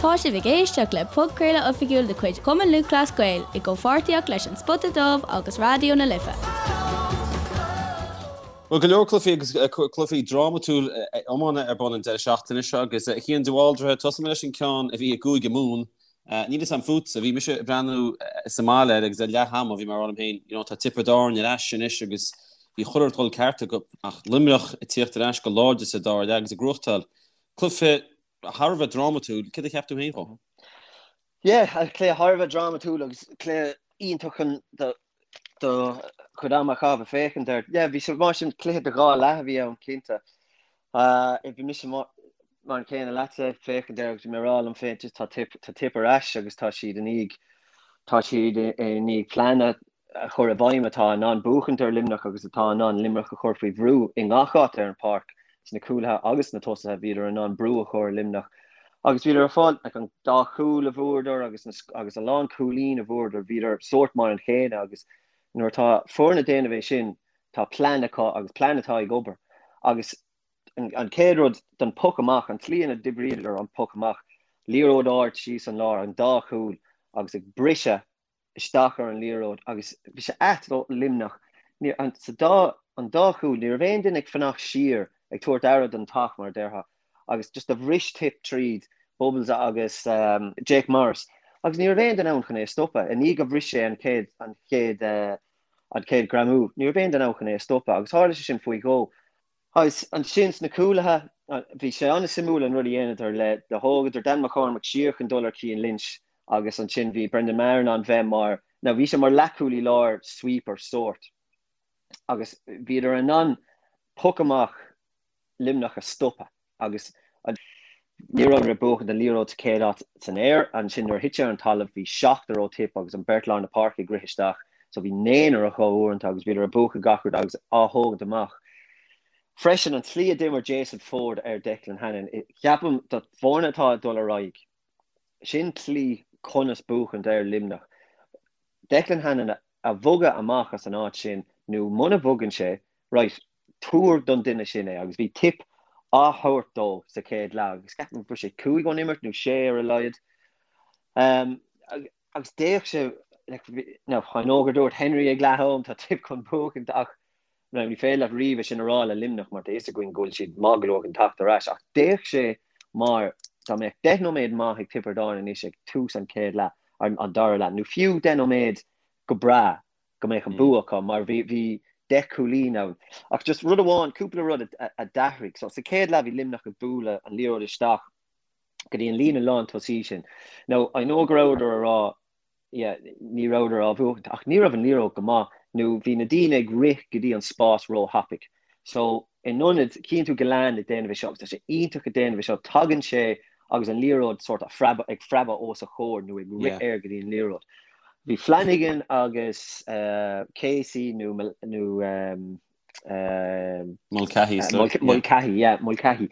Tá sibh ag éisteacht le podchraoladh oifigiúil de chuid Chumann Lúthchleas Gael i gcomhpháirtíocht leis An Spota Dubh agus Raidió na Life. Bhuel, go leor cluichí agus cluichí drámatúil iomána ar bun an deireadh seachtaine seo agus a Chian de Bhaldraithe, tosóidh mé leis an ceann a bhí i gCúige Mumhan. Níl fhios a'm fútsa, bhí mise ag breathnú sa mbaile air agus ar leath ama bhí mé ag rá liom féin, you know, tá Tiobraid Árann ar ais anois agus bhí chuile rud ag dul ceart acu ach Luimneach ag tíocht ar ais go láidir sa dara leath agus ag gnóthachtáil cluiche thar a bheith drámatúil. Céard a cheap tú féin fá? Yeah, cluiche thar a bheith drámatúil agus cluiche iontach chun do do chuid ama a chaitheamh ag féachaint air. Yeah, bhí sé mar sin cluiche de dhá leath a bhí ann, cinnte. Bhí mise mar an chéanna leatsa ag féachaint air agus bhí mé ag rá liom féin just tá Tip tá Tip ar ais agus tá siad i ndiaidh tá siad i ndiaidh plean a chur i bhfeidhm atá in ann buachaint ar Luimneach agus atá in ann Luimneach a chur faoi bhrú i ngach áit ar an pháirc, sna cúlaithe agus sna tosaithe, bhíodar in ann brú a chur ar Luimneach agus bhíodar ag fáil like, an dá chúl a bhfuaireadar agus, na, agus a lán cúilín a bhfuaireadar, bhíodar sórt mar an chéanna agus nuair atá foireann ag déanamh é sin, tá plean acu agus plean atá ag obair agus an chéad rud don poc amach, an tslí ina d'oibríodar an poc amach, liathróid ard síos an lár, an dá chúl agus ag briseadh isteach ar an liathróid agus bhí sé ait do Luimneach. Ní, an, sa dá, an dá chúl, ní raibh aon duine ag fanacht siar ag tabhairt aire don teach, mar a déarfá, agus just do bhris Tip tríd Bubbles agus um, Jake Morris agus ní raibh aon duine ann chun é a stopadh. I ndiaidh go bhris sé an chéad, an chéad, uh, an chéad greamú, ní raibh aon duine ann chun é a stopadh agus tharla sé sin faoi dhó. Agus ansin sna cúlaithe, bhí sé an-suimiúil an rud a dhéanadar le, do thógadar Dan McCormack siar chun dul ar Cian Lynch agus ansin bhí Brendan Maher in ann bheith mar, now bhí sé mar leathchúlaí láir sweeper sórt agus bhíodar in ann poc amach Luimneach a stopadh. Agus ní rabhadar ag buachaint an liathróid sa chéad áit san aer. Ansin nuair a thit sé ar an talamh bhí seachtar ó Tip agus an beirt lár na páirce ag rith isteach. So bhí naonúr acu uaireanta agus bhíodar ag buachan gach rud agus á thógaint amach. Freisin an tslí a d'imir Jason Forde ar Declan Hannon, ceapaim do foirne atá ag dul ar aghaidh, sin tslí conas buachaint ar Luimneach. Declan Hannon a bhogadh amach as an áit sin nó muna bhogann sé, right, tabhair don duine sin é agus bhí Tip á thabhairt dó sa chéad leath agus ceapaim go raibh sé cúig ón imirt nó sé ar a laghad. Um, agus d'fhéach sé like, now, I know gur dúirt Henry ag leath am tá Tip chun buachaint ach now, ní féidir leat riamh é sin a rá le Luimneach mar tá fhios againn go bhfuil siad maith go leor chun teacht ar ais ach d'fhéach sé mar dá mbeadh 10 nóiméad maith ag Tiobraid Árann anois ag tús an chéad leath an, an dara leath nó fiú 10 nóiméad go breá go mbeadh an bua acu mar bhí bhí 10 cúilín ann. Ach just rud amháin, cúpla rud a d'athraigh. So sa chéad leath bhí Luimneach ag bualadh an liathróid isteach go dtí an líne lán tosaí sin. Now I know go rabhadar a rá yeah, ní rabhadar á bhuachaint ach ní raibh an liathróid go maith nó bhí na daoine ag rith go dtí an spás róthapaidh. So in ionad, chíonn tú Gillane ag déanamh é seo agus tá sé iontach ag déanamh é seo, tagann sé agus an liathróid sort of ag preabadh os a chomhair nó ag rith air go dtí an liathróid. Bhí Flanagan agus Casey nó nó Mulcahy, Mulcahy, yeah, Mulcahy.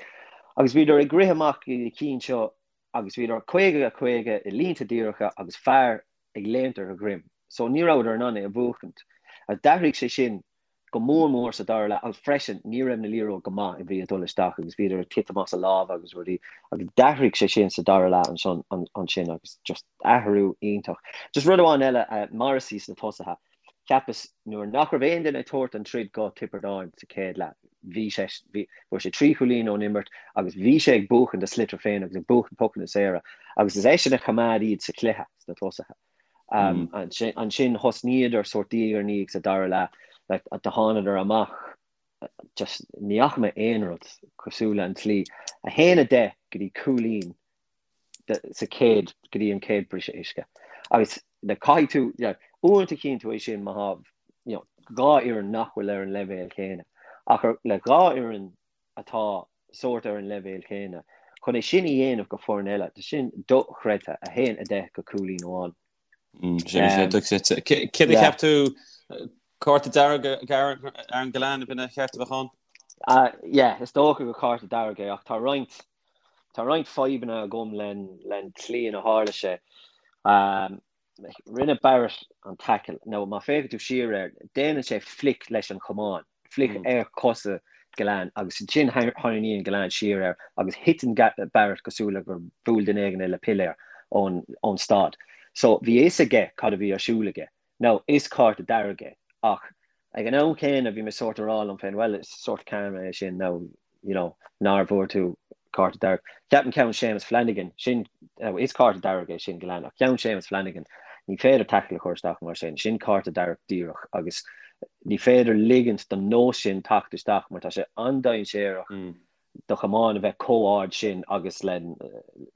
Agus bhíodar ag rith amach go dtí na cinn seo agus bhíodar 50 50 i línte díreacha agus fear ag léimt ar a dhroim. So ní rabhadar in ann é a bhuachaint. D'athraigh sé sin go mór mór sa dara leath agus freisin ní raibh na liathróid go maith a bhí ag dul isteach agus bhíodar ag titim as a lámha agus rudaí agus d'athraigh sé sin sa dara leath ansin ansin agus just athrú iontach. Just rud amháin eile, Morrissey sna tosaithe, cheapas nuair nach raibh aon duine ag tabhairt an troid go Tiobraid Árann sa chéad leath, bhí sé, bhí, fuair sé trí chúilín ón imirt agus bhí sé ag buachan a sliotar féin agus ag buachan pocanna saora agus is eisean a choimeád iad sa chluiche sna tosaithe. Ansin thosnaíodar sórt diaidh ar ndiaidh sa dara leath, like, do thánadar amach, just ní fhaca mé aon rud cosúil le an tslí, 1-10 go dtí cúilín sa chéad, go dtí an chéad briseadh uisce. Agus like, caithfidh tú, yeah, uaireanta chíonn tú é sin má tá, you know, dhá fhoireann nach bhfuil ar an leibhéal céanna. Ach ar, le dhá fhoireann atá sórt ar an leibhéal céanna. Chun é sin a dhéanamh go foireann eile, tá sin dochreidte, 1-10 go cúilín amháin. Sin dochreidte. Céard a cheap tú, cárta dearg Aaron Gillane, ab in a cheart a bheith ann? Yeah, is dócha gur cárta dearg é ach tá roinnt tá roinnt fadhbanna agam len tslí ina tharla sé. Rinne Barrett an tackle. Now má féachann tú siar air, déanann sé flick leis an chamán, flick ar chosa. Gillane agus ansin tharraingíonn Gillane siar air agus thiteann Barrett cosúil le gur bhuail duine éigin é le piléar ón ón stad. So bhí a fhios aige cad a bhí ar siúl aige. Now is cárta dearg é ach ag an am céanna bhí mé sórt a rá liom féin well is sórt karma é sin now you know nár bhfuair tú cárta dearg. Ceapaim ceann Séamus Flanagan, sin, now is cárta dearg é sin Gillane ach ceann Séamus Flanagan ní féidir tackle a chur isteach mar sin, sin cárta dearg díreach agus ní féidir ligint don nós sin teacht isteach mar tá sé an-dainséarach do chamán a bheith chomh ard sin agus len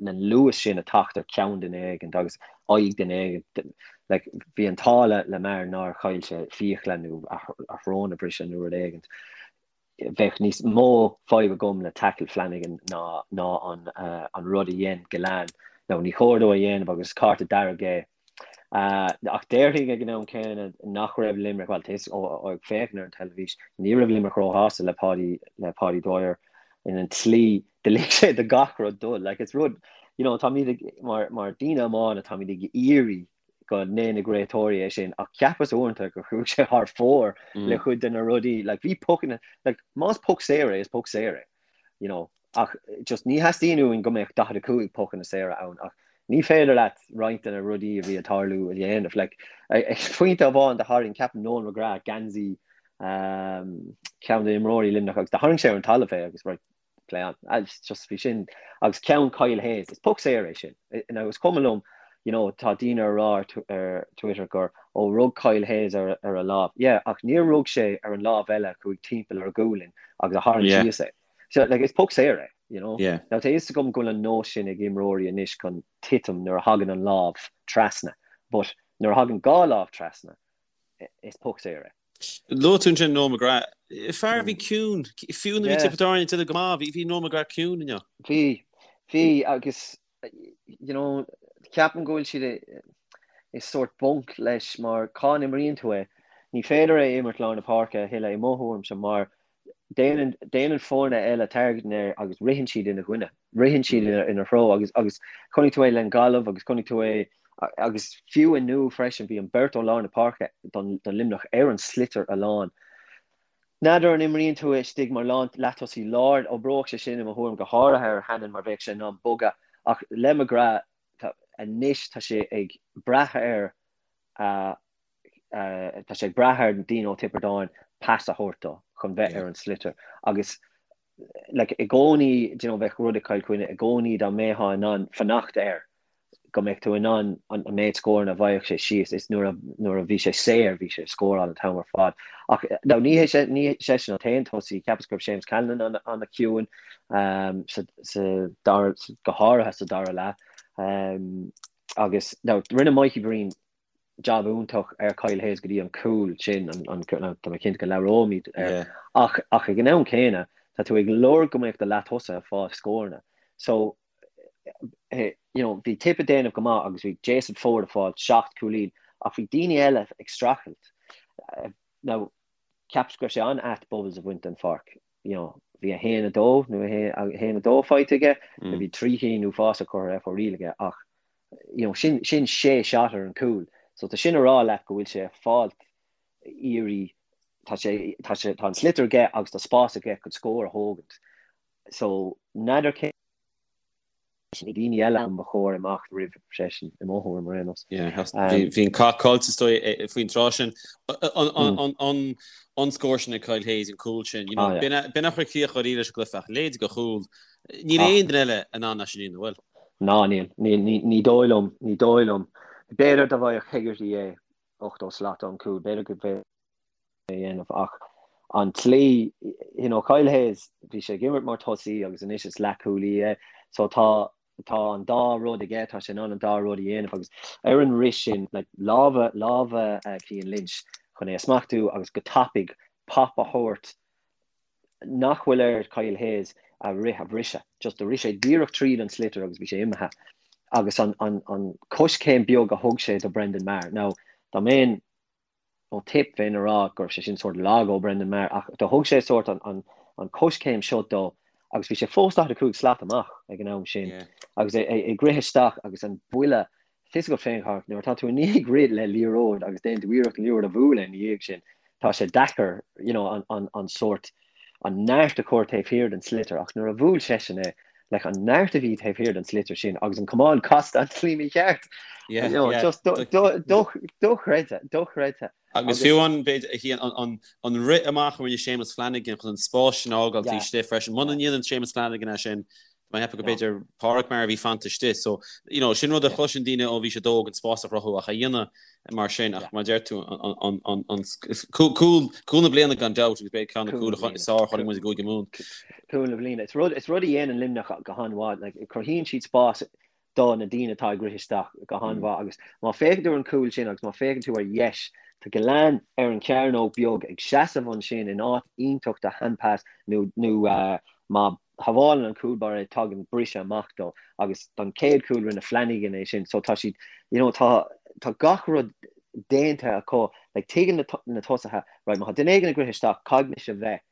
luas sin a teacht ar cheann duine éigint agus aghaidh duine éigint. Like, bhí an t-ádh le le Maher nár chaill sé fiacla nó a shrón a bhriseadh nó rud éigint. Bheadh níos mó fadhb agam le tackle Flanagan ná ná an an rud a dhein Gillane. Now ní chóir dó a dhéanamh agus is cárta dearg é. Ach déarfainn ag an am céanna nach raibh Limerick, bhuel, tá ó ag féachaint ar an teilifís, ní raibh Limerick róshásta le Páidí, le Páidí Dwyer in an tslí do lig sé do gach rud dul. Like, it's rud, you know, táimid ag, mar, mar daoine iomána, táimid ag iarraidh go ndéanfaidh réiteoirí é sin, ach cheapas uaireanta gur chuaigh sé thar fóir le cuid de na rudaí, like, bhí pocanna, like, más poc saor é, is poc saor é, you know. Ach just ní theastaíonn uainn go mbeadh 45 pocanna saora ann ach ní féidir leat roinnt de na rudaí a bhí ag tarlú a dhéanamh. Like, ag pointe amháin do tharraing, ceapaim Noel McGrath geansaí ceann de imreoirí Luimneach agus do tharraing sé ar an talamh é agus right, play on. Just bhí sin agus ceann Kyle Hayes, is poc saor é sin. Now is cuma liom, you know, tá daoine ag rá ar Twitter gur ó rug Kyle Hayes ar ar a lámh. Yeah, ach níor rug sé ar an lámh eile a chuaigh timpeall ar a ghualainn agus a tharraing síos é. So, like, is poc saor é, you know. Yeah. Now, tá a fhios agam go bhfuil an nós sin ag imreoirí anois chun titim nuair a thagann an lámh trasna, but nuair a thagann dhá lámh trasna, is poc saor é. Luaigh tú ansin Noel McGrath. Fear a bhí ciúin, fiú nuair a bhí Tiobraid Árann ag déanamh go maith, bhí, bhí Noel McGrath ciúin inniu. Bhí, bhí, agus, you know, ceapaim go bhfuil siad i, i sórt bunc leis mar cá n-imríonn tú é? Ní féidir é a imirt lár na páirce a thuilleadh i mo thuairimse mar Déanann, déanann foirne eile targeting air agus ritheann siad ina choinne, ritheann siad ina, ina threo agus, agus chonaic tú é le Gaillimh agus chonaic tú é agus fiú inniu freisin bhí an beirt ó lár na páirce don, don Luimneach ar an sliotar a lán. N'fheadar an imríonn tú é istigh mar lán, leatosaí láir, oibreodh sé sin i mo thuairim go háirithe ar Hannon mar bheadh sé in ann bogadh ach le McGrath tá, anois tá sé ag brath ar a tá sé ag brath ar daoine ó Tiobraid Árann pas a thabhairt dó chun bheith ar an sliotar agus like, i gcónaí you know, bheadh rud ag Cill Chainnigh i gcónaí dá mbeifeá in ann fanacht air go mbeadh tú in ann an méid scóranna a bhfaigheadh sé síos is nuair a, nuair a bhí sé saor bhí sé ag scóráil an t-am ar fad. Ach now, ní hé sé, ní seisean an t-aon tosaí, cheapas go raibh Séamus Callanan an-chiúin um, sa, sa dara, go háirithe sa dara leath. Um, agus now, rinne Mikey Breen jab iontach ar Kyle Hayes go dtí an cúl sin, tá mé cinnte go labhróimid air, ach ach ag an am céanna tá tú ag lorg go mbeadh do leath-tosaithe ag fáil scóranna. So, you know, bhí Tip ag déanamh go maith agus bhí Jason Forde ag fáil 7 cúilín ach bhí daoine eile ag streachailt. Now, cheapas go raibh sé an-ait Bubbles a bhaint den pháirc. You know, bhí 1, 2 nó 1, 2 faighte aige, bhí trí chinn uafásach curtha ar fóraoil aige ach you know, sin, sin sé shot ar an cúl. So tá sin a rá leat go bhfuil sé ag fáilt iarraidh, tá sé, tá sé, tá an sliotar aige agus tá spás aige chun scór a thógaint. So n'fheadar cé na daoine eile an ba chóir imeacht roimh seisean i mo thuairim ar aon nós. Yeah, bhí an cath caillte is dóigh faoin tráth sin. An, an scór sin ag Kyle Hayes, an cúl sin, you know, ah, yeah. b'in a chuir críoch dáiríre leis an gcluiche ach leithéid de chúl. Níl aon duine eile in ann é sin a dhéanamh, bhfuil? Ná níl. Ní dóigh liom. Ní dóigh liom. B'fhéidir dá bhfaigheadh Hegarty é 80 slat ón gcúl, b'fhéidir go bhféadfaí é a dhéanamh ach an tslí, you know, Kyle Hayes, bhí sé ag imirt mar tosaí agus anois is leathchúlaí é so tá tá an dá rud aige, tá sé in ann an dá rud a dhéanamh agus ar an rith sin, like, lámha, lámha Cian Lynch chun é a smachtú agus go tapaidh pop a thabhairt nach bhfuil ar Kyle Hayes a rith a bhriseadh. Just do rith sé díreach tríd an sliotar agus bhí sé imithe. Agus an, an, an coiscéim beag a thug sé do Brendan Maher. Now, dá mbeinn ó Tip bheinn a rá go raibh sé sin sórt lag ó Brendan Maher ach do thug sé sórt an, an, an coiscéim seo dó agus bhí sé fós 45 slat amach ag an am sin yeah. agus é, é, ag rith isteach agus an buille Tá fhios agat féin, Chárthach, nuair atá tú i ndiaidh rith le liathróid agus déanann tú iarracht an liathróid a bhualadh ina dhiaidh sin, tá sé deacair, you know, an, an, an sórt, an neart a chur taobh thiar den sliotar ach nuair a bhuail seisean é, like an neart a bhí taobh thiar den sliotar sin agus an camán casta an tslí mícheart. Yeah, you know, yeah. Just dochreidte, dochreidte. Agus fiú an b'fhéidir an rith amach a rinne Séamus Flanagan chun an spás sin a fhágáil taobh istigh freisin. Muna ndéanann Séamus Flanagan é sin, Tá mé ag ceapadh go b'fhéidir Pádraic Maher a bhí fanta istigh. So, you know, sin rud a chloiseann daoine ó bhí siad óg, an spás a chruthú ach a dhéanamh mar sin. Ach mar a deir tú, an, an, an, cúl, cúl na bliana gan dabht agus b'fhéidir ceann de na cúil is fearr a chonaic muid i gCúige Mumhan. Cúl na bliana. Is rud, is rud a dhéanann Luimneach go han-mhaith. Like, cruthaíonn siad spás do na daoine atá ag rith isteach go han-mhaith agus má féachann tú ar an cúl sin agus má féachann tú ar dheis, tá Gillane ar an chearnóg beag ag seasamh ansin in áit iontach do hand pass nó, nó má shábhálann an cúl báire é tagann briseadh amach dó agus don chéad chúl rinne Flanagan é sin so tá siad you know tá tá gach rud déanta acu like tuigeann na na tosaithe right má tá duine éigin ag rith isteach caithfidh mise bheith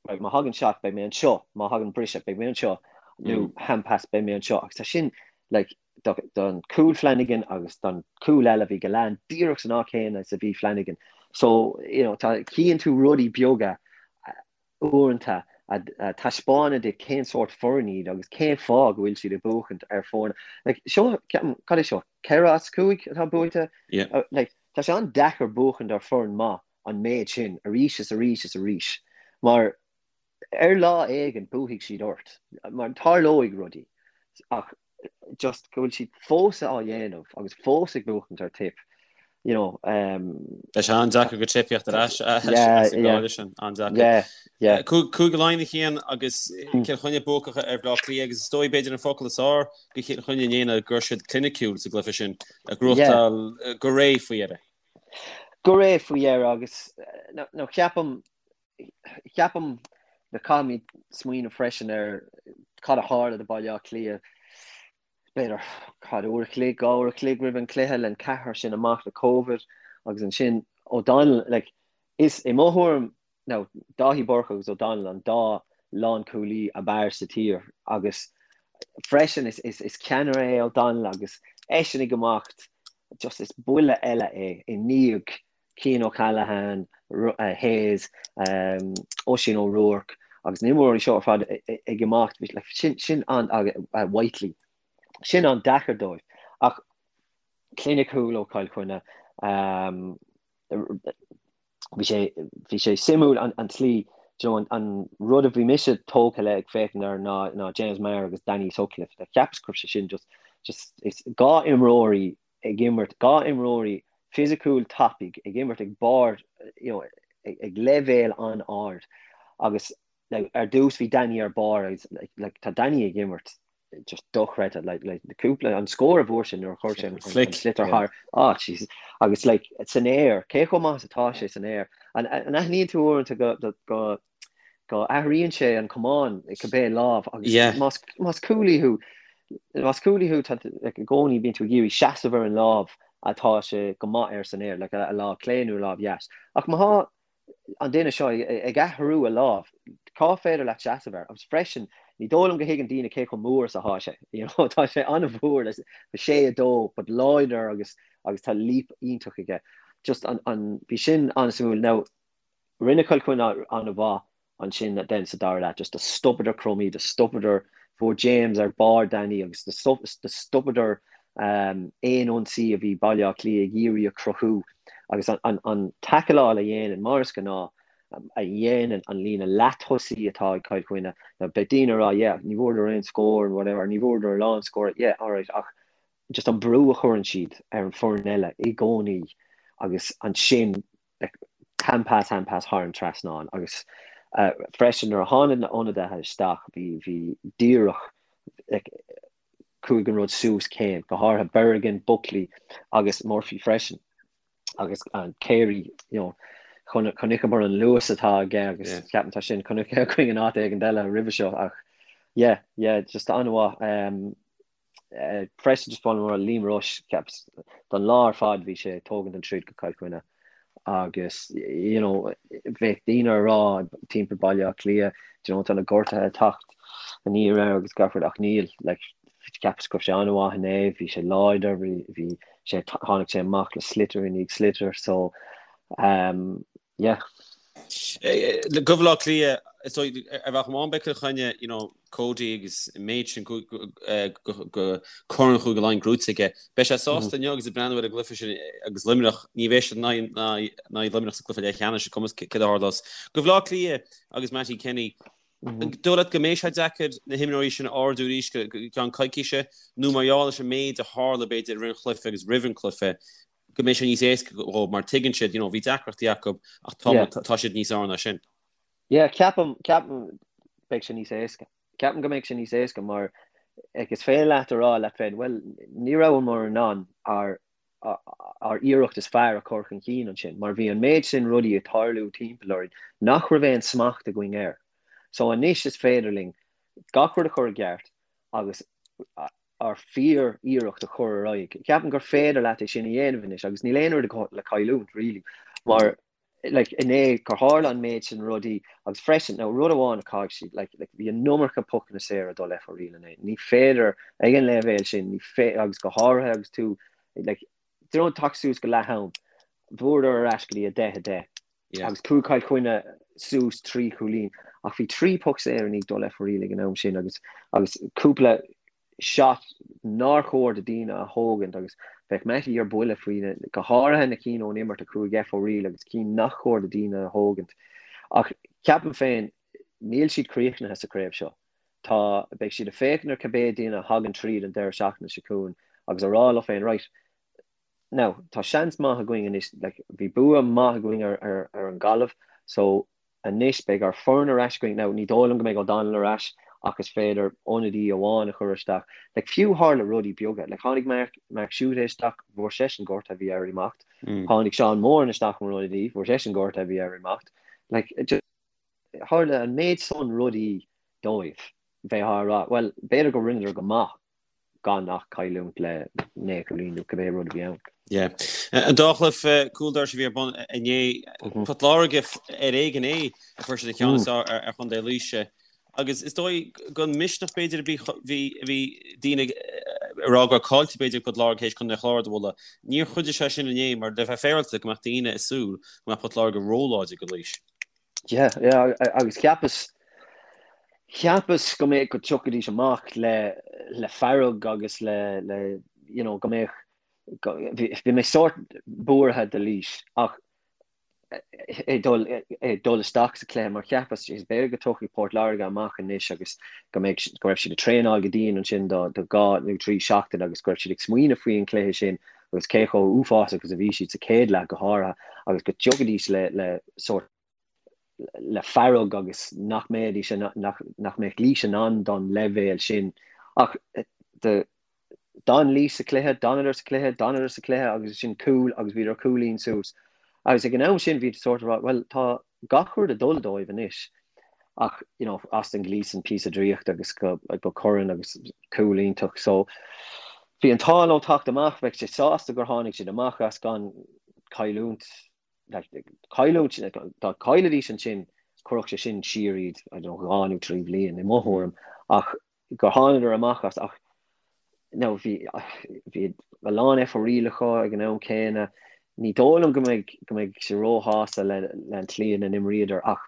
right má thagann shot beidh mé anseo má thagann briseadh beidh mé anseo nó mm. hand pass beidh mé anseo agus tá sin like do, don cúl Flanagan agus don cúl eile bhí Gillane díreach san áit chéanna is a bhí Flanagan so you know tá cíonn tú rudaí beaga uaireanta a taispeánann duit cén sórt foireann iad agus cén fáth go bhfuil siad ag buachaint ar foirne. Like, seo, ceapaim, cad é seo, 4 as 5 atá buaite? Yeah. Like, tá sé an-deacair buachaint ar foireann maith an méid sin arís is arís is arís mar ar lá éigin buafaidh siad ort mar tarlóidh rudaí ach just go bhfuil siad fós á dhéanamh agus fós ag buachaint ar Tip, you know. Um, Tá sé an-deacair do Tip theacht ar ais as an gcáile sin, an-deacair. Yeah, yeah. Cúige Laighean a Chian agus Cill Chainnigh buacach ar Bhaile Átha Cliath agus is dóigh b'fhéidir an focal is fearr do Chill Chainnigh inné ná go raibh siad cliniciúil sa gcluiche sin, ag gnóthachtáil go réidh faoi dheireadh. Go réidh faoi dheireadh agus nó ceapaim Ceapaim go caithfimid smaoineamh freisin ar cad a tharla do Baile Átha Cliath b'fhéidir cad uair a chloig, 2 uair a chloig roimh an cluiche le an ceathrar sin amach le Covid agus ansin O'Donnell like is i mo thuairim now Dáithí Burke agus O'Donnell an dá lánchúlaí ab fhearr sa tír agus freisin is is is ceannaire é O'Donnell agus eisean ag imeacht just is buille eile é i ndiaidh Cian O'Callaghan, Hayes, Oisín O'Rourke agus na himreoirí seo ar fad ag imeacht, sin an, Whiteley, sin an-deacair dóibh. Ach cliniciúil ó Chill Chainnigh, bhí sé, bhí sé suimiúil an tslí, you know, an rud a bhí mise tógtha le ag féachaint air ná, ná James Maher agus Danny Sutcliffe. Cheapas go raibh sé sin just, just, is 2 imreoirí ag imirt, 2 imreoirí fisiciúil tapaidh ag imirt ag barr, you know, ag leibhéal an-ard agus like, ar dtús bhí Danny ar barr agus like, like, tá Danny ag imirt just dochreidte like, like, cúpla an scór a fuair sé nuair a chuir sé an, an, an sliotar thar ah Jesus agus like san aer cé chomh maith is atá sé san aer an, an aithníonn tú uaireanta go, go, go go athraíonn sé an camán i cibé lámh agus Yeah. más más cúlaí thú más cúlaí thú tá like, i gcónaí bíonn tú ag iarraidh seasamh ar an lámh atá sé go maith air san aer, like, a lámh clé nó a lámh dheas. Ach má thá an duine seo ag, ag athrú a lámh, cá féidir leat seasamh air? Agus freisin, ní dóigh liom go thuigeann daoine cé chomh mór is atá sé. You know, tá sé an-mhór, like, 6-2, but láidir agus agus tá leap iontach aige. Just an, an, bhí sin an-suimiúil. Now, Rinne Cill Chainnigh an-mhaith ansin then sa dara leath, just do stopadar Crummey, do stopadar, fuair James ar barr Danny agus do stopadar aon ionsaí a bhí Baile Átha Cliath ag iarraidh a chruthú agus an taicleáil a dhéanann, mar is gnáth, a dhéanann an líne leath-tosaí atá ag Cill Chainnigh. Now beidh daoine ag rá yeah, ní bhfuaireadar aon scór and whatever, ní bhfuaireadar a lán scór, yeah, alright, ach just an brú a chuireann siad ar an foireann eile i gcónaí agus ansin hand pass, hand pass thar an trasnán agus freisin nuair a tháinig na ionadaithe isteach bhí bhí díreach like chuaigh an rud suas céim, go háirithe Bergin, Buckley agus Murphy freisin agus an Carey you know chonaiceamar an luas atá aige agus Yeah. ceapaim tá sin chonaic againn in áit éigin eile roimhe seo ach yeah yeah just an-mhaith um, Freisin just mar Liam Rushe ceapas don lá ar fad bhí sé ag tógaint an troid go Cill Chainnigh agus you know bheadh daoine ag rá timpeall Baile Átha Cliath you know tá na gortuithe ag teacht aniar air agus gach rud ach níl like cheapas go raibh sé an-mhaith inné bhí sé láidir bhí bhí sé tháinig sé amach le sliotar i ndiaidh sliotar so um yeah. Do Bhaile Átha Cliath. Is dóigh, ar bhealach amháin beidh Cill Chainnigh, you know, Cody agus an méid sin go Corn Chúige Laighean gnóite aige. Beidh sé sásta inniu agus ag breathnú ar an gcluiche sin agus Luimneach, ní bheidh siad in aghaidh Luimneach sa gcluiche leathcheannais, is cuma céard a tharlós. Do Bhaile Átha Cliath agus Mattie Kenny, an dóigh leat go mbeidh sé deacair na himreoirí sin a ardú arís go ceann coicíse nó mar gheall leis an méid a tharla b'fhéidir i rith an chluiche agus roimh an cluiche, go mbeidh sé níos éasca dhóibh mar tuigeann siad, you know, bhí deacrachtaí acu ach tá, yeah. tá siad níos fearr ná sin. Yeah, ceapaim, ceapaim beidh sé níos éasca. Ceapaim go mbeidh sé níos éasca mar ag is féidir leat a rá leat féin, well, ní rabhamar in ann ár ár iarracht is fearr a chur chun cinn ansin, mar bhí an méid sin rudaí ag tarlú timpeall orainn nach raibh aon smacht againn air. So anois is féidir linn gach rud a chur i gceart agus ár fíor-iarracht a chur ar aghaidh. Ceapaim gur féidir leat é sin a dhéanamh anois agus níl aon rud le cailliúint really mar like inné gur tharla an méid sin rudaí agus freisin now rud amháin a chaithfidh siad like like bhí an iomarca pocanna saora ag dul F O'Reilly inné. Ní féidir ag an leibhéal sin ní fé agus go háirithe agus tú like do you know teacht suas go leath am bhuadar ar ais go dtí 10 10 agus chuaigh Cill Chainnigh suas 3 chúilín ach bhí 3 poc saor i ndiaidh dul F O'Reilly ag an am sin agus agus cúpla shot nár chóir do daoine a thógaint agus bheadh Mattie ar buile faoi na, go háirithe na cinn ón imirt a chuaigh F O'Reilly agus cinn nach chóir do daoine a thógaint. Ach ceapaim féin níl siad críochnaithe sa chraobh seo. Tá, beidh siad ag féachaint ar cibé duine a thagann tríd an deireadh seachtaine seo chugainn agus a rá leo féin right, Now, tá seans maith againn anois, like, bhí bua maith againn ar, ar, ar an Ghaillimh, so anois beidh ár foireann ar ais againn. Now, ní dóigh liom go mbeidh O'Donnell ar ais ach is féidir ionadaí amháin a chur isteach. Like, fiú tharla rudaí beaga. Like, tháinig Mark, Mark Schutte isteach, bhfuair seisean gortú, bhí air imeacht. Mm. Tháinig Seán Moran isteach mar ionadaí, bhfuair seisean gortú, bhí air imeacht. Like, just, tharla an méid san rudaí dóibh. Bheith á rá, well, b'fhéidir go rinneadar go maith. gan ach cailliúint le 9 chúilín nó cibé rud a bhí ann. Yeah. An dá chluiche cúl dorais a bhí ar bun inné, Port Láirge ar éigean é a fuair siad an ceann is fearr ar Chontae Laoise. Agus is dóigh gan misneach b'fhéidir a bhí bhí daoine ag rá go raibh caillte b'fhéidir ag Port Láirge théis Contae an Chláir a bhualadh. Níor chuidigh sé sin inné mar le bheith féaráilte go mbeadh daoine ag súil go mbeadh Port Láirge róláidir do Laois. Yeah, yeah, agus cheapas, cheapas go mbeadh, go dtiocfaidís amach le, le fearg agus le, le, you know, go mbeadh, go, bhí, bhí mé sórt buartha do Laois ach ag dul, ag dul isteach sa chluiche mar cheapas, is b'fhéidir go dtiocfaidh Port Láirge amach anois agus go mbeadh, go raibh siad ag traenáil go dian ansin do, do dhá nó trí seachtain agus go raibh siad ag smaoineamh faoi an chluiche sin agus cé chomh uafásach agus a bhí siad sa chéad leath go háirithe agus go dtiocfaidís le le sórt le fearg agus nach mbeidís nach nach mbeadh Laois in ann don leibhéal sin ach de d'fhan Laois sa chluiche, d'fhanadar sa chluiche, d'fhanadar sa chluiche agus sin cúl agus bhíodar cúilín suas agus ag an am sin bhí sórt ag rá bhuel tá gach rud ag dul dóibh anois ach you know Austin Gleeson píosa draíochta agus go go Curran agus cúl iontach so bhí an t-ádh leo teacht amach bheadh sé sásta gur tháinig siad amach as gan cailliúint like, cailliúint dá gcaillfidís ansin chuirfeadh sé sin siar iad I don't know, dhá nó trí bhliain i mo thuairim ach gur thánadar amach as ach now bhí bhí a lán F O'Reilly acu ag an am céanna. Ní dóigh liom go mbeidh go mbeidh sé róshásta le le an tslí ina n-imríodar ach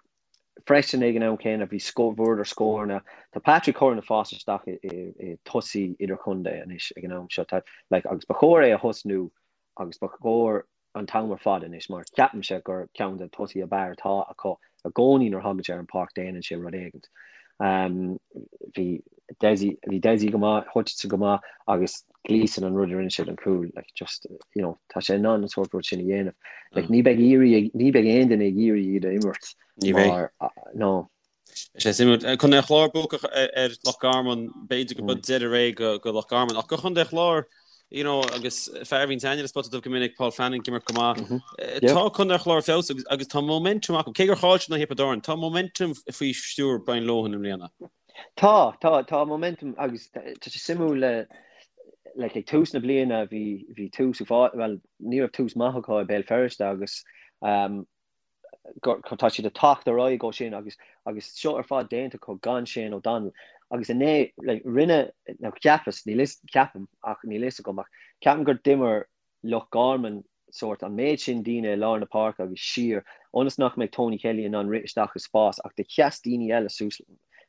freisin ag an am céanna bhí bhuadar scóranna. Tá Patrick Curran ag fás isteach i i i tosaí idirchontae anois ag an am seo. Tá like agus ba chóir é a thosnú agus ba chóir an t-am ar fad anois mar ceapaimse gur ceann de na tosaithe ab fhearr atá acu i gcónaí nuair a thagann sé ar an pháirc déanann sé rud éigint. Bhí Dessie bhí Dessie go maith, Hutchinson go maith agus Gleeson an rud a rinne sé don chúl like just you know tá sé in ann an sórt rud sin a dhéanamh. Like ní bheidh iarraidh ní bheidh aon duine ag iarraidh iad a imirt mar no. Sé suimiúil. Contae an Chláir buacach ar Loch Garman, b'fhéidir go b'in deireadh ré go Loch Garman. Ach go Chontae an Chláir, you know, agus fear a bhíonn aithne le Spota Dubh go minic, Paul Flanagan ag imirt go maith. Tá Contae an Chláir ar feabhas agus tá momentum acu. Cé gur chaill siad in aghaidh Thiobraid Árann, tá momentum faoi stiúir Brian Lohan i mbliana. Tá, tá, tá momentum agus tá sé suimiúil le like ag tús na bliana bhí bhí tús well ní raibh tús maith acu i Béal Feirste agus um, tá siad ag teacht ar aghaidh ó sin agus agus seo ar fad déanta acu gan Shane O'Donnell agus inné like, rinne nó cheapas níl fhios ceapaim ach níl fhios agam ach ceapaim gur d'imir Loch Garman. sórt an méid sin daoine i lár na páirce agus siar ionas nach mbeidh Tony Kelly in ann rith isteach i spás ach do sheas daoine eile suas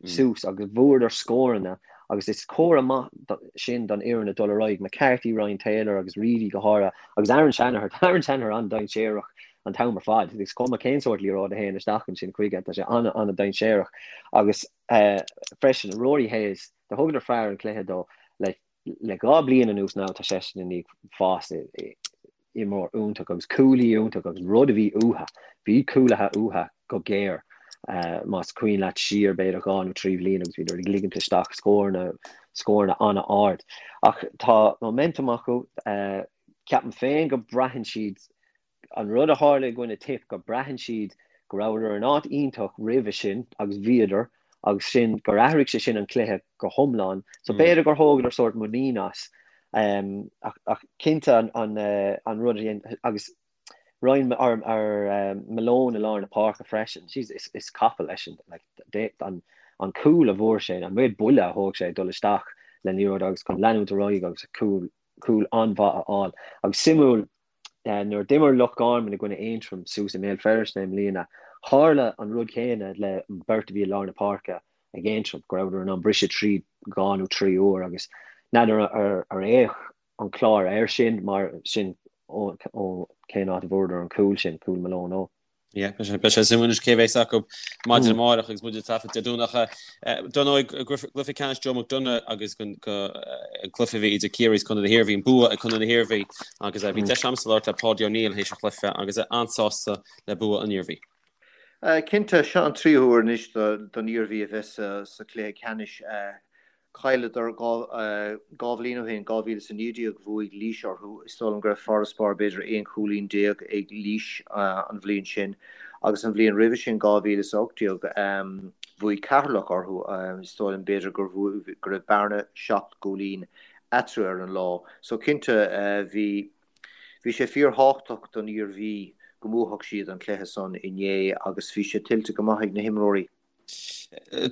suas agus bhuadar scóranna agus is comhartha maith sin don fhoireann ag dul ar aghaidh, McCarthy, Ryan Taylor agus Reidy go háirithe agus Aaron Shanahan, tá Aaron Shanahan an-dainséarach an t-am ar fad, is cuma cén sórt liathróid a théann isteach ansin chuige, tá sé an-an-dainséarach agus freisin Rory Hayes, do thugadar fear an chluiche dó le Le 2 bliain anuas now tá seisean i ndiaidh fás i imreoir iontach agus cúlaí iontach agus rud a bhí uatha, bhí cúlaithe uatha go géar más cuimhin leat siar b'fhéidir 2 nó 3 bhliain agus bhíodar ag ligint isteach scóranna, scóranna an-ard. Ach tá momentum acu, ceapaim féin go braitheann siad An rud a tharla i gcoinne Tipp, go braitheann siad go rabhadar in áit iontach roimhe sin agus bhíodar agus sin gur athraigh sé sin an cluiche go hiomlán. So b'fhéidir gur thógadar sórt muinín as. Ach cinnte an rud a dhein agus Ryan or Malone i lár na páirce freisin, jeez is capall eisean. Like an cúl a bhfuair sé, an méid buille a thóg sé ag dul isteach le liathróid agus chun leanúint ar aghaidh agus cúl cúl an-mhaith a fháil. Agus suimiúil Nuair a d'imir Loch Garman i gcoinne Aontroim suas i mBéal Feirste i mbliana, tharla an rud céanna le an beirt a bhí i lár na páirce ag Aontroim, go rabhadar in ann briseadh tríd 2 nó 3 uair agus n'fheadar ar fhéach an Clár air sin mar sin ó cén áit a bhfuaireadar an cúl sin, cúl Malone ó. Yeah, beidh sé suimiúil anois cé bheas acu maidin amárach agus muid ag taifead Dé Domhnach. Dar ndóigh, gcluiche ceannais Joe McDonagh agus an cluiche a bhí idir Ciarraí is Contae na hIarmhí, an bua ag Contae na hIarmhí agus bhí deis agamsa labhairt le Páidí O'Neill théis an chluiche agus é an-sásta le bua an Iarmhí. Cinnte, seo an tríú huair anois don Iarmhí a bheith sa chluiche ceannais. Chailleadar 2 bhliain ó shin, 2019, bhuaigh Laois orthu. Is dóigh liom go raibh farasbarr b'fhéidir 11 chúilín ag Laois an bhliain sin agus an bhliain roimhe sin, 2018, bhuaigh Ceatharlach orthu. Is dóigh liom b'fhéidir go raibh bearna 7 gcúilín eatarthu ar an lá. So cinnte bhí bhí sé fíorthábhachtach don Iarmhí go mbuafadh siad an cluiche san inné agus bhí sé tuillte go maith ag na himreoirí.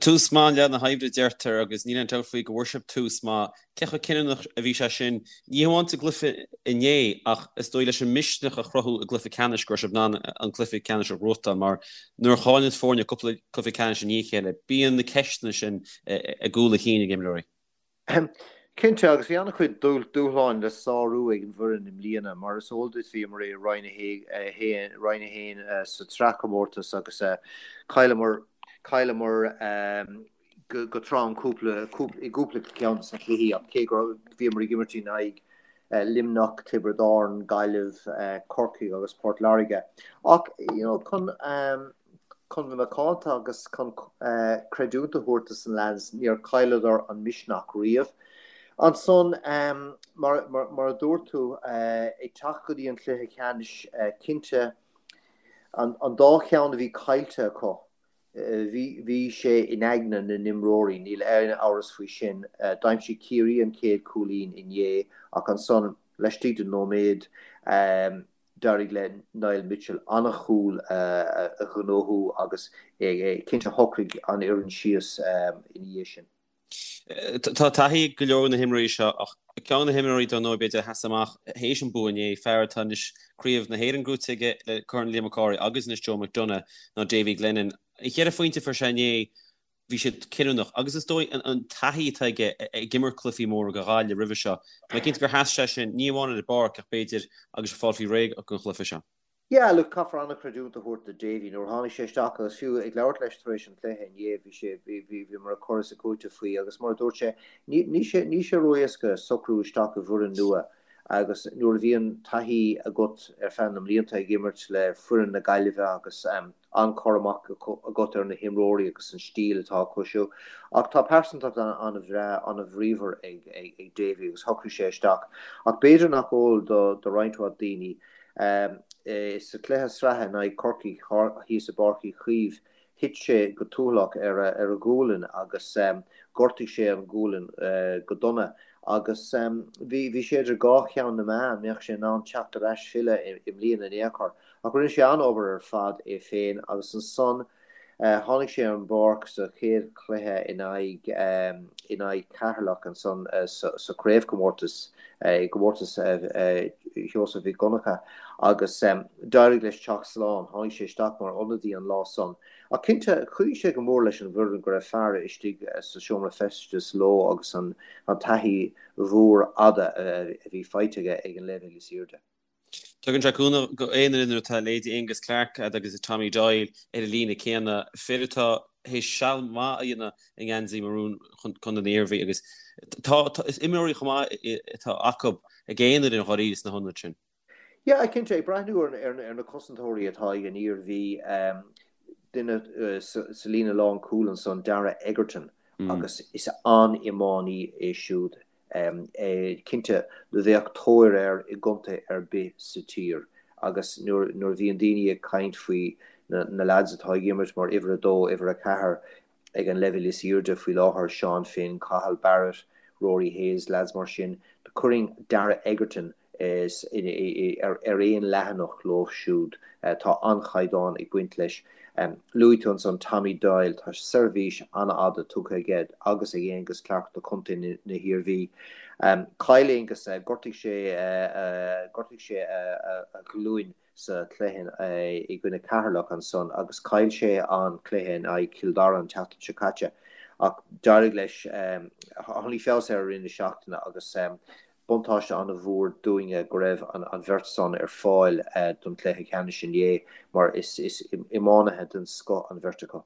Tús maith leath na hoibre a deirtear agus níl aon dabht faoi go bhfuair sibh tús maith. Cé chomh cinniúnach a bhí sé sin, ní hamháin sa gcluiche inné ach is dóigh leis an misneach a chruthú i gcluiche ceannais go raibh sibh in ann an cluiche ceannais a ghnóthachtáil mar nuair a chailleann foirne cúpla cluiche ceannais i ndiaidh a chéile bíonn na ceisteanna sin i gcúl a chinn ag imreoirí. Cinnte, agus bhí an-chuid dúshláin le sárú ag an bhfoireann i mbliana. Mar is eol duit, bhíomar i Roinn 1, Roinn 1 sa tsraithchomórtas agus chailleamar, chailleamar go trom cúpla, i gcúpla ceann de na cluichí ach cé go bhíomar ag imirt in aghaidh Luimneach, Tiobraid Árann, Gaillimh, Corcaigh agus Port Láirge. Ach, you know, chun, Chun bheith macánta agus chun creidiúint a thabhairt dos na leaids, níor chailleadar an misneach riamh. Ansan, mar a dúirt tú, ag teacht go dtí an cluiche ceannais, cinnte, an dá cheann a bhí caillte acu, bhí sé in aigne na n-imreoirí, níl aon amhras faoi sin. D'aimsigh Ciarraí an chéad chúilín inné ach ansan, laistigh de nóiméad, D'éirigh le Niall Mitchell an-chúl a ghnóthú agus cinnte shocraigh an fhoireann síos ina dhiaidh sin. Tá taithí ag go leor de na himreoirí seo ach ceann de na himreoirí dar ndóigh b'fhéidir a sheas amach théis an bua inné, fear atá anois Craobh na hÉireann gnóite aige le Corn Liam Mac Cárthaigh agus anois Joe McDonagh ná Davy Glennon. An cheithre phointe a fuair sé inné, bhí siad cinniúnach agus is dóigh an taithí atá aige ag imirt cluichí móra do Ghaillimh roimhe seo, tá mé cinnte gur sheas sé sin, ní amháin ar an bpáirc ach b'fhéidir agus ag fáil faoi réidh don chluiche seo. Yeah, look, caithfear an-chreidiúint a thabhairt do Davy. Nuair a tháinig sé isteach agus fiú ag labhairt leis tar éis an chluiche inné, bhí sé, bhí, bhí, bhíomar ag cur is ag cúiteamh faoi agus mar a dúirt sé, ní, ní sé, ní sé ró-éasca socrú isteach i bhfoireann nua agus nuair a bhíonn taithí agat ar feadh na mblianta ag imirt le foireann na Gaillimhe agus an-chur amach agat ar na himreoirí agus an stíl atá acu siúd. Ach tá pearsantacht an-bhreá, an-bhríomhar ag Davy agus shocraigh sé isteach. Ach b'fhéidir nach eol do roinnt mhaith daoine, sa chluiche sraithe in aghaidh Chorcaí thíos i bPáirc Uí Chaoimh, thit sé go tuathalach ar a ghualainn agus ghortaigh sé an ghualainn go dona. Agus bhí sé idir dhá cheann na meá an mbeadh sé in ann teacht ar ais filleadh i mbliana in aon chor. Ach rinne sé an-obair ar fad é féin agus ansan. Tháinig sé ar an bpáirc sa chéad chluiche in aghaidh in aghaidh Ceatharlach ansan sa chraobhchomórtas, i gcomórtas Sheosaimh Mhic Dhonncha agus d'éirigh leis teacht slán. Tháinig sé isteach mar ionadaí an lá san. Ach cinnte, chuidigh sé go mór leis an bhfoireann go raibh fear istigh sa seomra feistis leo agus an taithí mhór fhada a bhí faighte aige ag an leibhéal is airde. Tugann sé cúnamh go aon fhoireann nuair atá leithéidí Aonghus Clarke agus Tommy Doyle ar an líne céanna, fir atá théis seal maith a dhéanamh i ngeansaí marún Chontae na hIarmhí agus tá is imreoirí chomh maith atá acu ag aon fhoireann dháiríre sna hionaid sin. Yeah, cinnte, ag breathnú ar na cosantóirí atá ag an Iarmhí, duine sa líne lánchúil ansan, Darragh Egerton, agus is an-iománaí é siúd. Cinnte, bheadh tóir air i gcontae ar bith sa tír agus nuair a bhíonn daoine ag caint faoi na leaids atá ag imirt mar uimhir a dó, uimhir a ceathair ag an leibhéal is airde faoi láthair, Seán Finn, Cathal Barrett, Rory Hayes, leaids mar sin, chuirfinn Darragh Egerton ar aon leathanach leo siúd. Tá an-chaighdeán ag baint leis. Luaigh tú ansan Tommy Doyle, tá seirbhís an-fhada tugtha aige agus ag Aonghus Clarke do chontae na hIarmhí. Chaill Aonghus, ghortaigh sé ghortaigh sé a ghlúin sa chluiche i gcoinne Ceatharlach ansan agus chaill sé an cluiche in aghaidh Chill Dara an tseachtain seo caite ach d'éirigh leis, tháinig feabhas air i rith na seachtaine agus Buntáiste an-mhór dúinne go raibh an bheirt san ar fáil don chluiche ceannais inné mar is iománaithe den scoth an bheirt acu.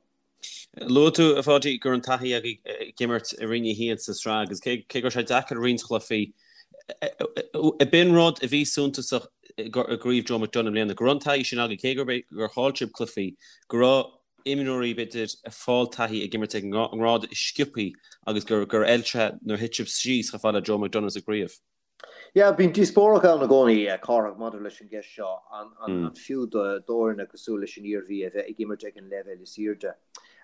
Luaigh tú, a Pháidí, go raibh an taithí agaibh ag imirt i Roinn 1 sa tsraith agus cé go raibh sé deacair roinnt chluichí, ab in rud a bhí suntasach i gcraobh Joe McDonagh i mbliana, go raibh an taithí sin agaibh, cé gur chaill sibh cluichí, go raibh imreoirí, b'fhéidir, ag fáil taithí ag imirt ag an ngrád is sciobthaí agus gur fheil sé nuair a thit sibh síos chomh fada le Joe McDonagh sa gcraobh. Yeah, bíonn díospóireacht ann i gcónaí, Cárthach, maidir leis an gceist seo, an fiú d'fhoirne cosúil leis an Iarmhí a bheith ag imirt ag an leibhéal is airde,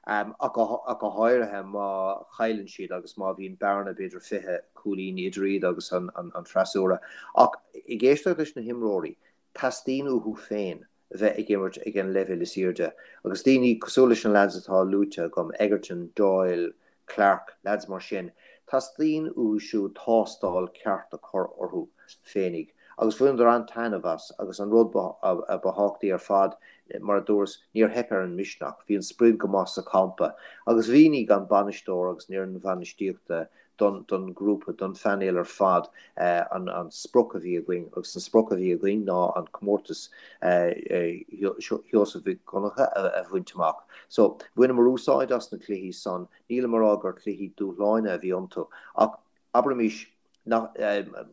ach go háirithe má chailleann siad agus má bhíonn bearna b'fhéidir 20 cúilín idir iad agus an freasúra. Ach ag éisteacht leis na himreoirí, teastaíonn uathu féin bheith ag imirt ag an leibhéal is airde agus daoine cosúil leis na leaids atá luaite agam, Egerton, Doyle, Clarke, leaids mar sin, teastaíonn uathu siúd tástáil ceart a chur orthu féinig agus bhaineadar an-taitneamh as agus an rud ba thábhachtaí ar fad, mar a dúras, níor theip ar an misneach, bhí an sprid go maith sa champa agus mhínigh an bainisteoir agus an fhoireann bhainistíochta don don ghrúpa, don phainéal ar fad an sprioc a bhí againn agus an sprioc a bhí againn ná an comórtas Sheosaimh Mhic Dhonncha a bhaint amach. So, bhaineamar úsáid as na cluichí san, nílim a rá gur cluichí dúshláine a bhí iontu ach abraimis nach,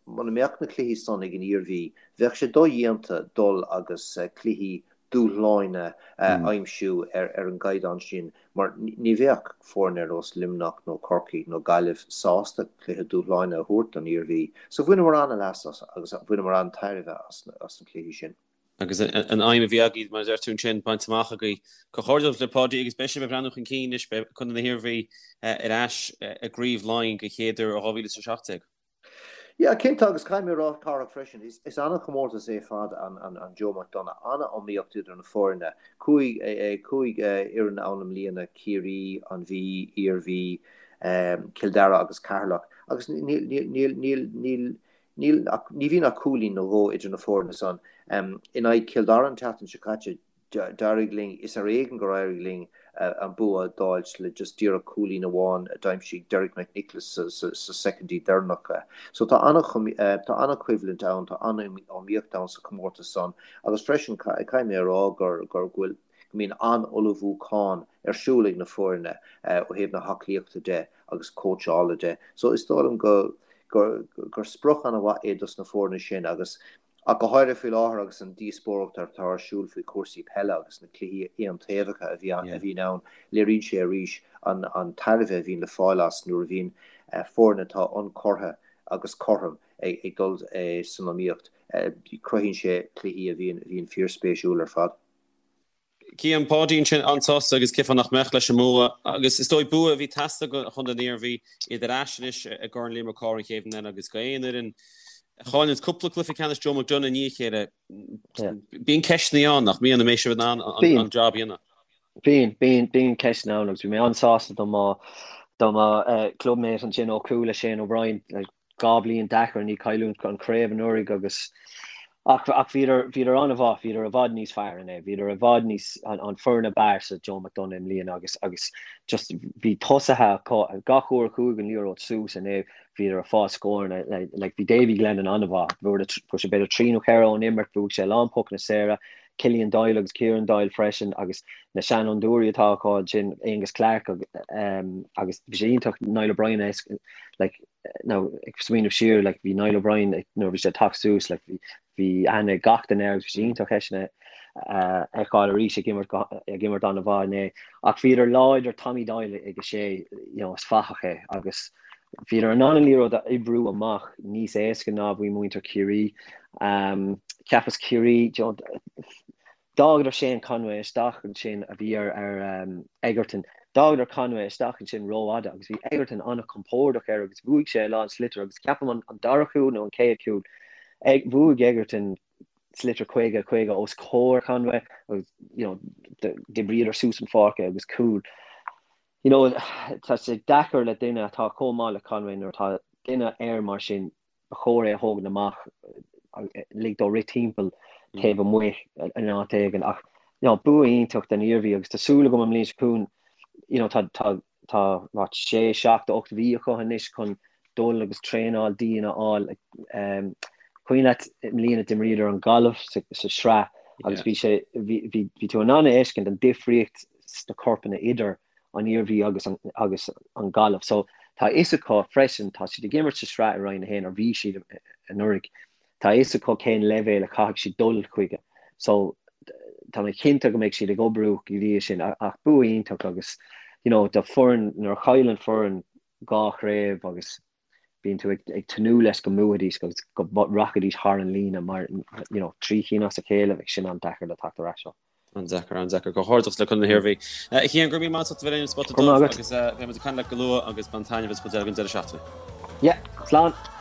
muna mbeadh na cluichí san ag an Iarmhí, bheadh sé dodhéanta dul agus cluichí dúshláine a aimsiú ar an gcaighdeán sin mar ní bheadh foirne ar nós Luimneach nó Corcaigh nó Gaillimh sásta cluiche dúshláine a thabhairt don Iarmhí. So bhaineamar an-leas as agus bhaineamar an-tairbhe as na cluichí sin. Agus an aidhm a bhí agaibh, mar a deir tú ansin, bainte amach agaibh. Comhghairdeas libh Páidí agus beidh sibh ag breathnú chun cinn anois, beidh Contae na hIarmhí ar ais i gCraobh Laighean den chéad uair ó 2017. Yeah, cinnte, agus caithfidh mé a rá, Cárthach, freisin, is an-chomórtas é ar fad an Joe McDonagh, an-iomaíocht idir na foirne, 5 fhoireann ann i mbliana, Ciarraí, an Mhí, Iarmhí, Cill Dara agus Ceatharlach, agus níl, níl, níl, níl, níl ach, ní bhíonn ach cúilín nó dhó idir na foirne san. In aghaidh Chill Dara an tseachtain seo caite, D'éirigh linn, is ar éigean gur éirigh linn an bua d'fháilt le just díreach cúilín amháin a d'aimsigh Derek McNicholas sa soicindí deireanacha. So tá an-choimhlint ann, tá an-iomaíocht ann sa chomórtas san agus freisin caithfidh mé a rá gur go bhfuil go mbíonn an-ullmhúchán ar siúl ag na foirne ó thaobh na haclaíochta de agus cóitseála de. So is dóigh liom go gur sprioc an-mhaith é dos na foirne sin agus Ach go háirithe faoi láthair agus an díospóireacht atá ar siúl faoi chúrsaí peile agus na cluichí aontaobhacha a bhíonn ann, léiríonn sé arís an tairbhe a bhíonn le fáil as nuair a bhíonn foirne atá ionchurtha agus cothrom ag dul san iomaíocht. Cruthaíonn sé cluichí a bhíonn fíorspéisiúil ar fad. Cian, Páidí ansin an-sásta agus cén fáth nach mbeadh leis an mbua agus is dóigh bua a bhí ag teastáil do Chontae na hIarmhí, iad ar ais anois i gCorn Liam Mac Cárthaigh an chéad bhliain eile agus go aon fhoireann a chailleanns cúpla cluiche ceannais Joe McDonagh i ndiaidh a chéile. Bíonn ceisteanna ann nach mbíonn an mbeidh sibh in ann an job a dhéanamh. Bíonn, bíonn, bíonn ceisteanna ann agus bhí mé an-sásta do mo, do mo clubmate ansin ó Cuala, Shane O'Brien, like, 2 bliain deacair i ndiaidh cailliúint an chraobh anuraidh agus ach, ach bhíodar, bhíodar an-mhaith, bhíodar i bhfad níos fearr inné, bhíodar i bhfad níos, an, an foireann ab fhearr sa Joe McDonagh i mbliana agus, agus just bhí tosaithe acu, gach uair a chuaigh an liathróid suas inné bhíodar ag fáil scóranna, like, like bhí Davy Glennon an-mhaith, fuair sé b'fhéidir 3 nó 4 ón imirt, bhuaigh sé a lán pocanna saora, Killian Doyle agus Kieran Doyle freisin agus na seanfhondúirí atá acu ansin, Aonghus Clarke agus bhí sé iontach Niall O'Brien a like now ag smaoineamh siar like bhí Niall O'Brien nuair a bhí sé ag teacht suas like bhí bhí aithne ag gach duine air agus bhí sé iontach eisean a fheiceáil arís ag imirt ag imirt an-mhaith inné. Ach bhíodar láidir Tommy Doyle ag a sé you know is fathach é agus Bhíodar in ann an liathróid a oibriú amach níos éasca ná a bhí muintir Chiarraí. Cheapas Ciarraí, d'fhágadar Shane Conway isteach ansin a bhí ar Egerton. D'fhágadar Conway isteach ansin rófhada agus bhí Egerton an-chompordach air agus bhuaigh sé a lán sliotar agus ceapaim an dara cúl nó an chéad chúl, bhuaigh Egerton sliotar 50, 50 os comhair Conway agus you know d'oibríodar suas an pháirc é agus cúl. You know, tá sé deacair le duine atá chomh maith le Conway nuair atá duine air mar sin, ba chóir é a thógaint amach, lig dó rith timpeall taobh amuigh in áit éigin. Ach, you know, bua iontach don Iarmhí agus tá súil agam an mbliain seo chugainn, you know, tá, tá, tá, what, sé, seacht, 8 mhí acu anois chun dul agus traenáil dian a fháil. Cuimhin leat i mbliana d'imríodar an Ghaillimh sa, sa sraith agus bhí sé, bhí, bhí, bhí tú in ann a fheiscint an difríocht sna corpanna idir an Iarmhí agus an agus an Ghaillimh. So tá a fhios acu freisin, tá siad ag imirt sa sraith i Roinn 1, or bhí siad anuraidh, tá a fhios acu cén leibhéal a chaithfidh siad dul chuige. So tá mé cinnte go mbeidh siad ag oibriú go dtí sin ach bua iontach agus you know do foireann nuair a chailleann foireann dhá chraobh agus bíonn tú ag tnúth leis go mbuafaidís agus go rachaidís thar an líne mar you know 3 chinn as a chéile bheadh sin an-deacair le teacht ar ais ó. An-deacair, an-deacair. Comhghairdeachas le Contae na hIarmhí. A Chian, go raibh míle maith agat as ucht a bheith linn ar an Spota Dubh agus beidh muid ag caint leat go luath agus bain taitneamh as an chuid eile den deireadh seachtaine. Yeah, slán!